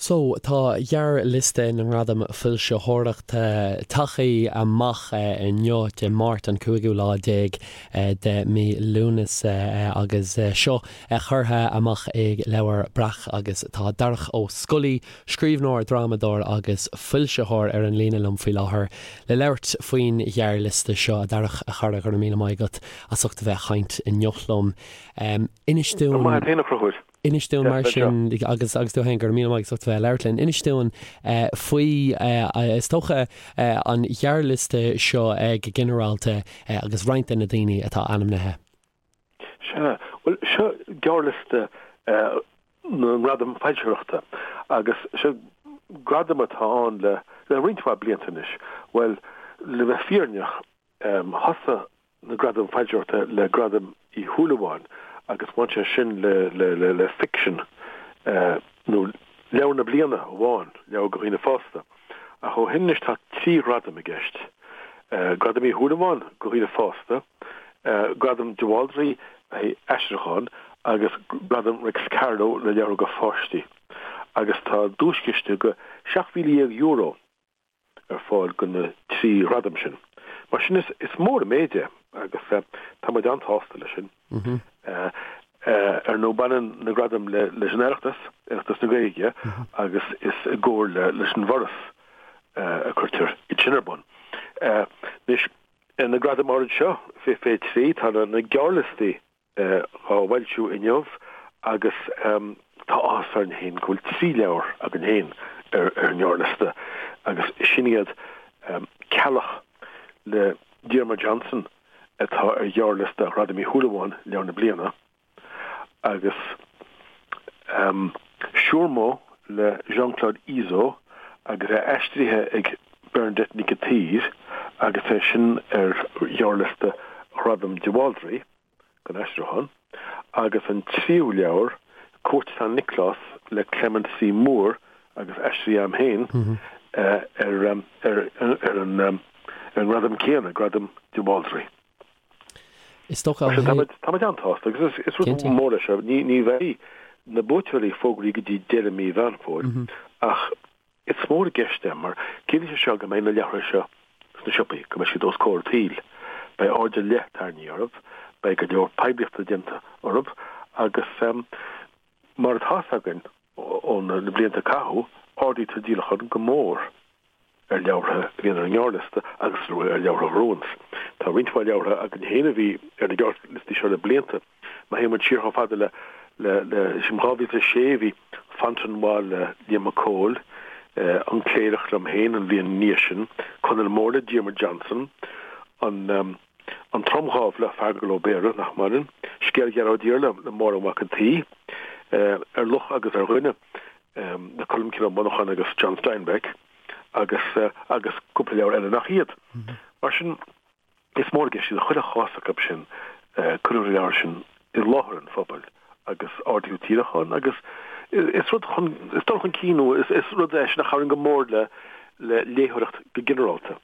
So, tá gearrliosta na nGradam Foilsitheoireachta tagtha amach inniu, Dé Máirt an cúigiú lá déag de mí Lúnasa agus seo curtha amach ag Leabhar Breac agus tá Darach Ó Scolaí, scríbhneoir, drámadóir agus foilsitheoir ar an líne liom faoi láthair le labhairt faoin ghearrliosta seo. A Dharach, a chara, go raibh míle maith agat as ucht a bheith ag caint inniu liom. Inis dúinn. Go raibh maith agat féin, a Chonchúir. Inis dúinn mar sin, agus agus tú féin, go raibh míle maith agat as ucht a bheith ag labhairt linn, inis dúinn faoi, is dócha, an ghearrliosta seo go ginearálta agus roinnt de na daoine atá ainmnithe. Sea, bhuel, seo gearrliosta na nGradam Foilsitheoireachta agus seo gradam atá ann le roinnt mhaith blianta anois. Bhuel, le bheith fírinneach, thosaigh na Gradaim Foilsitheoireachta le Gradam Uí Shúilleabháin agus bhain sé sin le ficsean nó leabhar na bliana amháin, leabhar do dhaoine fásta. Ach ó shin anois tá 3 ghradam i gceist, Gradam Uí Shúilleabháin do dhaoine fásta, Gradam de Bhaldraithe le haghaidh aistriúchán agus Gradam Réics Carló le leabhar do pháistí. Agus tá duaischiste de €17,000 ar fáil do na 3 ghradam sin. Mar sin is mór an méid é agus tá muid an-sásta leis sin. Ar ndóigh baineann na gradaim leis an Oireachtas, Oireachtas na Gaeilge, agus is i gcomhar leis an bhForas a cuirtear iad sin ar bun. Anois, na gradaim áirid seo, fé 23, tá na gearrliostaí á bhfoilsiú inniu agus tá áthas orainn féin go bhfuil 3 leabhar againn féin ar an ngearrliosta agus sin iad Ceallach le Diarmuid Johnson atá ar ghearrliosta Ghradam Uí Shúilleabháin, Leabhar na Bliana, agus Siúrmó le Jean-Claude Izzo agus é aistrithe ag Bernadette Nic an tSaoir agus é sin ar ghearrliosta Ghradam de Bhaldraithe don aistriúchán, agus an tríú leabhar, Cúirt San Nioclás le Clement C. Moore agus aistrithe agam féin ar an ngradam céanna, Gradam de Bhaldraithe. Is dócha Mar sin, tá muid an-sásta agus is rud mór é seo. Ní bheidh na buaiteoirí fógraithe go dtí deireadh mí Mheán Fómhair ach is mór i gceist é mar ciallaíonn sé seo go mbeidh na leabhartha seo sna siopaí, go mbeidh siad os comhair an tsaoil. Beidh aird ar leith tarraingthe orthu, beidh go leor poiblíochta déanta orthu agus mar atá 'fhios againn ó na blianta a caitheadh, ardaítear díolachán go mór ar leabhartha a bhíonn ar an ngearrliosta agus ar leabhartha a ghnóthaíonns. Tá roinnt mhaith leabhartha againn féin a bhí ar na gearrliostaí seo le blianta. Má théann muid siar chomh fada le le 2006 bhí Fontenoy le Liam Mac Cóil, An Cléireach liom féin an bhliain ina dhiaidh sin, Conall Mór le Diarmuid Johnson, An An Tromdhámh le Feargal Ó Béarra, nach maireann, Scéal Ghearóid Fhir le Máire Mhac an tSaoi, Ar Luch agus ar Dhuine le Colmcille Ó Monacháin agus John Steinbeck agus agus cúpla leabhar eile nach iad. Mar sin, is mór i gceist iad i chuile chás acu sin, cuireadh na leabhair sin i láthair an phobail agus ardaíodh díolachán agus is rud chun, is dul chun cinn nó is rud é sin a chabhraíonn go mór le le léitheoireacht go ginearálta.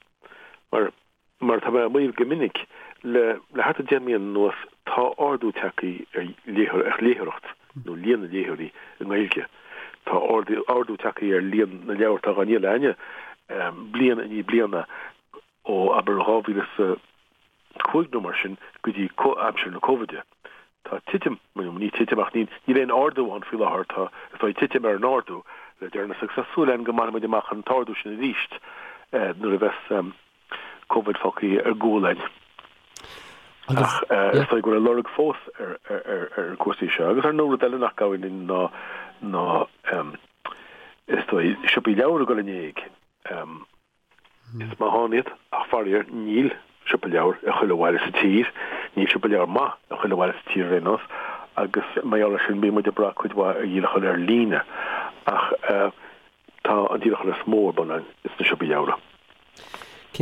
Mar Mar atá mé á maíomh go minic, le le thart ar 10 mbliana anuas tá ardú tagtha ar ar léitheoireacht, nó líon na léitheoirí i nGaeilge. Tá ardú ardú tagtha ar líon na leabhar atá á ndíol againne bliain i ndiaidh bliana ó abair 2005 nó mar sin go dtí aimsir na Cóivide. Tá titim, nó ní titim ach níl aon ardú ann faoi láthair, tá is dóigh titim ar an ardú le deireanas agus tá súil againn go mbainfidh muid amach an t-ardú sin arís nuair a bheas Covid fágtha ar gcúl againn. Ach is dóigh go bhfuil a lorg fós ar ar cúrsaí seo. Agus ar ndóigh rud eile nach gcabhraíonn linn ná ná is dóigh siopaí leabhar ag dul in éag. Is maith ann iad, ach faraor níl siopa leabhar i chuile bhaile sa tír, níl siopa leabhar maith i chuile bhaile sa tír ar aon nós, agus mar gheall air sin bíonn muid ag brath cuid mhaith ar dhíolachán ar líne. Ach tá an díolachán is mó ar bun againn sna siopaí leabhar.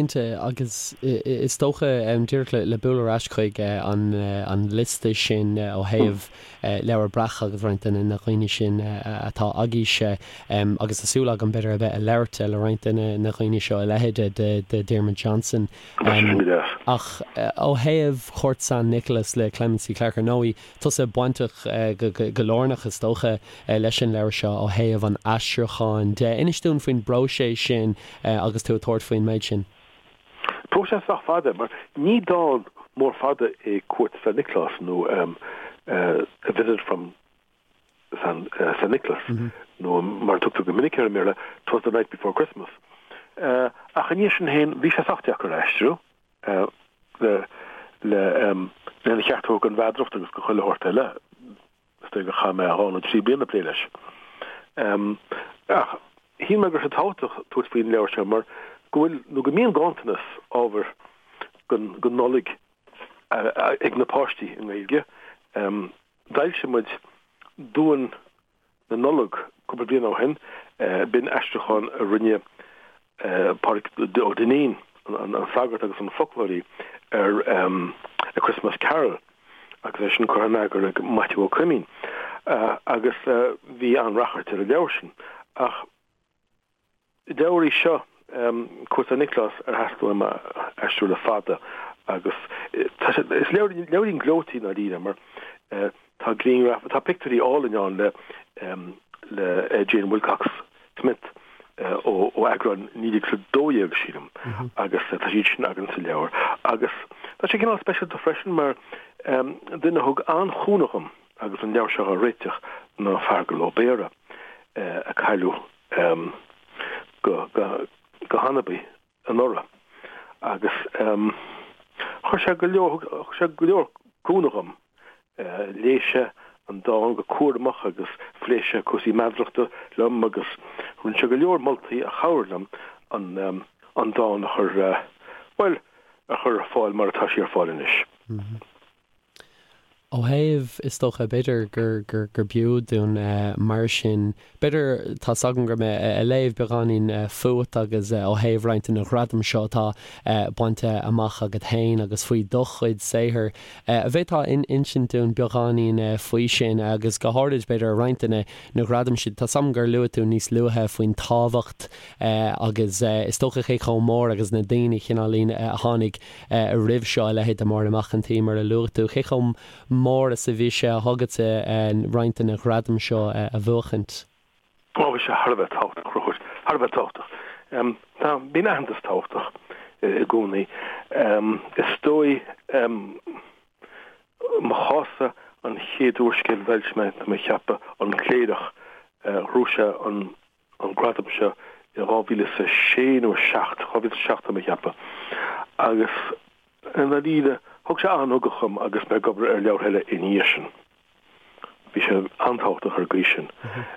Cinnte, agus is dócha, díreach le bualadh ar ais chuig an liosta sin ó thaobh Leabhar Breac agus roinnt de na dhaoine sin atá agaibhse, agus tá súil agam b'fhéidir a bheith ag labhairt le roinnt de na dhaoine seo, a leithéid de Diarmuid Johnson. Ach ó thaobh Chúirt San Nioclás le Clemency Clarke, ar ndóigh, tusa bainteach go lárnach, is dócha, leis an leabhar seo ó thaobh an aistriúcháin de. Inis dúinn faoin bpróiseas sin agus tú ag tabhairt faoin méid sin. Próiseas sách fada, mar ní dán mór fada é Cuairt San Nioclás nó A Visit from San Nioclás nó mar a tugtar go minic air i mBéarla, 'Twas the Night Before Christmas. Ach ina dhiaidh sin féin, bhí sé sách deacair a aistriú. le lena cheart a thabhairt don mheadaracht agus do chuile shórt eile. Is dóigh gur chaith mé dhá nó trí bliana ag plé leis. Ach shíl mé go raibh sé tábhachtach tabhairt faoin leabhar seo mar go bhfuil, nó go mbíonn ganntanas ábhair don Nollaig ag na páistí i nGaeilge. D'fhoilsigh muid Duan na Nollag cúpla bliain ó shin. B'in aistriúchán a rinne Pádraig Ó Duinnín, an sagart agus an foclóirí, ar A Christmas Carol agus é sin curtha in eagar ag Maitiú Ó Coimín agus bhí an-rachairt ar an leabhar sin. Ach. Leabhar í seo, Cuairt San Nioclás, ar theastaigh uaim a aistriú le fada agus tá sé, is leabhar, leabhairín gleoite i ndáiríre mar tá grianghraif, tá pictiúirí álainn ann le, le Jane Wilcox Smith ó, ó eagrán 1912 sílim agus tá siad sin againn sa leabhar agus tá sé cineál speisialta freisin mar duine a thug an-chúnamh dhom agus an leabhar seo á réiteach ná Feargal Ó Béarra a cailleadh go hanabaí anuraidh agus chuir sé go leor, thug sé go leor cúnamh dhom. Léigh sé an dán go cúramach agus phléigh sé cúrsaí meadarachta liom agus rinne sé go leor moltaí a chabhraigh liom an dán a chur, bhuel, a chur ar fáil mar atá sé ar fáil anois. Ó thaobh, is dócha, b'fhéidir gur, gur, gur b'fhiú dúinn mar sin, b'fhéidir, tá's agam go raibh mé ag léamh beagáinín fút agus ó thaobh roinnt de na gradaim seo atá bainte amach agat féin agus faoi do chuid saothair. An bhféadfá insint dúinn beagáinín faoi sin agus go háirid, b'fhéidir, roinnt de na, na gradaim sin. Tá's agam gur luaigh tú níos luaithe faoin tábhacht agus is dócha cé chomh mór agus na daoine cineáilín a tháinig roimh seo, a leithéid de Máire Mac an tSaoi, mar a luaigh tú. Cé chomh mór is a bhí sé agatsa roinnt de na gradaim seo a bhuachaint? Ó, bhí sé thar a bheith tábhachtach, a Chonchúir, thar a bheith tábhachtach. Tá, bíonn aitheantas tábhachtach i gcónaí. Is dóigh, mo chás-sa, an chéad úrscéal a d'fhoilsigh mé, tá mé ag ceapadh, An Cléireach, ghnóthaigh sé an an gradam seo i 2006 nó 7, 2007 tá mé ag ceapadh, agus i ndáiríre thug sé an-ugach dhom agus mé ag obair ar leabhartha eile ina dhiaidh sin. Bhí sé an-tábhachtach ar an gcaoi sin.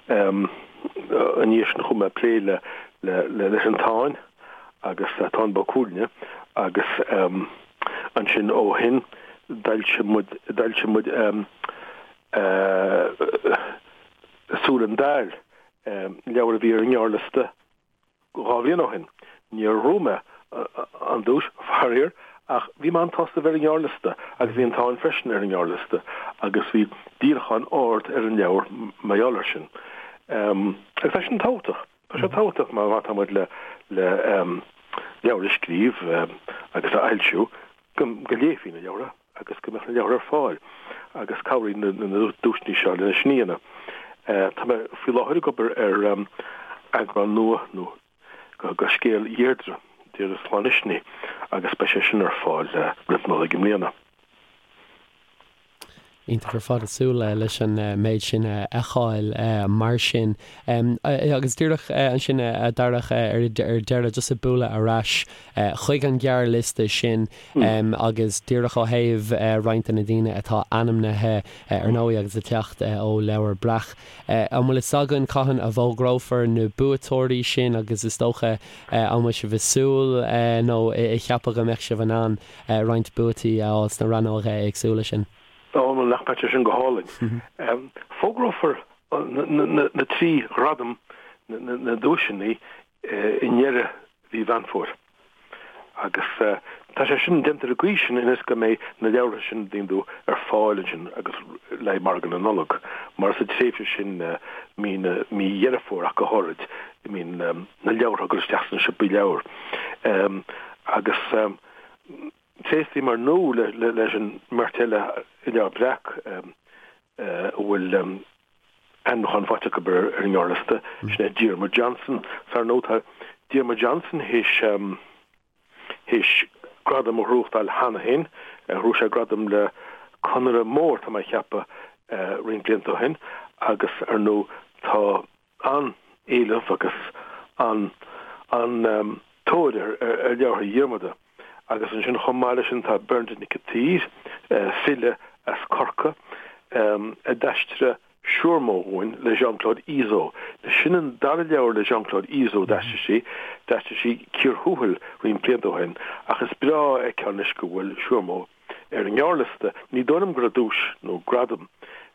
Ina dhiaidh sin chuaigh mé ag plé le le leis an Táin agus Táin Bó Cuailgne agus ansin ó shin d'fhoilsigh muid d'fhoilsigh muid Súil an Daill, leabhar a bhí ar an ngearrliosta dhá bhliain ó shin. Níor ghnóthaigh mé an duais, faraor, ach bhí mé an-tsásta a bheith ar an ngearrliosta agus bhí an Táin freisin ar an ngearrliosta agus bhí díolachán ard ar an leabhar mar gheall air sin. Agus tá sin tábhachtach. Tá sé tábhachtach má tá muid le leabhar a scríobh agus a fhoilsiú go léifí na leabhartha agus go mbeadh na leabhartha ar fáil agus cabhraíonn na duaiseanna seo lena sin a dhéanamh. Tá mé faoi láthair ag obair ar eagrán nua nó de scéal Dheirdre, Deirdre Sláine Uisnigh, agus beidh sé sin ar fáil roimh Nollaig i mbliana. Iontach ar fad, ag súil leis an méid sin a fheiceáil mar sin. Agus díreach ansin a Dharach ar deireadh, just ag bualadh ar ais chuig an ghearrliosta sin agus díreach ó thaobh roinnt de na daoine atá ainmnithe ar ndóigh agus ag teacht ó Leabhar Breac. An bhfuil fhios againn cathain a bhfógrófar na buaiteoirí sin agus is dócha an bhfuil sibh ag súil nó ag ceapadh go mbeadh sibh in ann roinnt buaití a fháil sna rannóga éagsúla sin. Ó, nach mbeadh sé sin go hálainn. Fógrófar na trí ghradam, na duaiseanna, i ndeireadh mhí Mheán Fómhair. Agus tá sé sin déanta ar an gcaoi sin ionas go mbeidh na leabhartha sin an dtuigeann tú ar fáil ansin agus le haghaidh margadh na Nollag, mar sa tréimhse sin, mí na, mí Dheireadh Fómhair ach go háirid, mbíonn na leabhartha ag dul isteach sna siopaí leabhar. Agus tréaslaím ar ndóigh leis an mbeirt eile i Leabhar Breac a bhfuil ainmniúchán faighte acu ar an ngearrliosta, sin é Diarmuid Johnson. 'S ar ndóigh tá Diarmuid Johnson théis théis gradam a ghnóthachtáil cheana féin. Ghnóthaigh sé gradam le Conaire Mór, tá mé a cheapadh, roinnt blianta ó shin agus ar ndóigh tá an-éileamh agus an-tóir ar leabhartha Dhiarmada. Agus ansin chomh maith leis sin tá Bernadette Nic an tSaoir, file as Corcaigh, a d'aistrigh Siormó dhúinn le Jean-Claude Izzo. Sin an dara leabhar le Jean-Claude Izzo a d'aistrigh sí. D'aistrigh sí Cíor Thuathail roinnt blianta ó shin ach is breá a fheiceáil anois go bhfuil Siormó ar an ngearrliosta. Ní dóigh liom go raibh duais nó gradam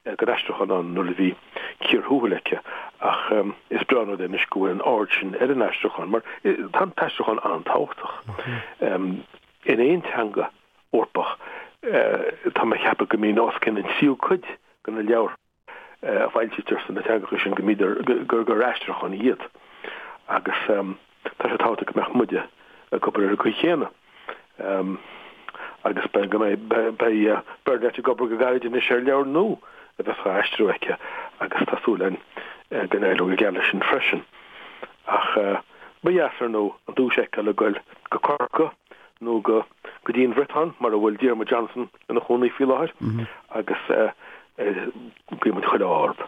don aistriúchán ann nuair a bhí Cíor Thuathail aici ach is breá an rud é anois go bhfuil an aird sin ar an aistriúchán mar tá an t-aistriúchán an-tábhachtach in aon teanga Eorpach. Tá mé a cheapadh go mbíonn os cionn an tríú cuid de na leabhartha a foilsítear sna teangacha sin go mbíodar gur gur aistriúcháin iad agus tá sé tábhachtach go mbeadh muide ag obair ar an gcaoi chéanna agus beidh go mbeidh beidh Bernadette ag obair go gairid anois ar leabhar nua a bheas á aistriú aici agus tá súil againn go n-éireoidh go geal leis sin freisin. Ach ba dheas ar ndóigh an duais a fheiceáil ag goil go Corcaigh nó go go dtí an Bhriotáin mar a bhfuil Diarmuid Johnson ina chónaí faoi láthair agus guíonn muid chuile ádh orthu.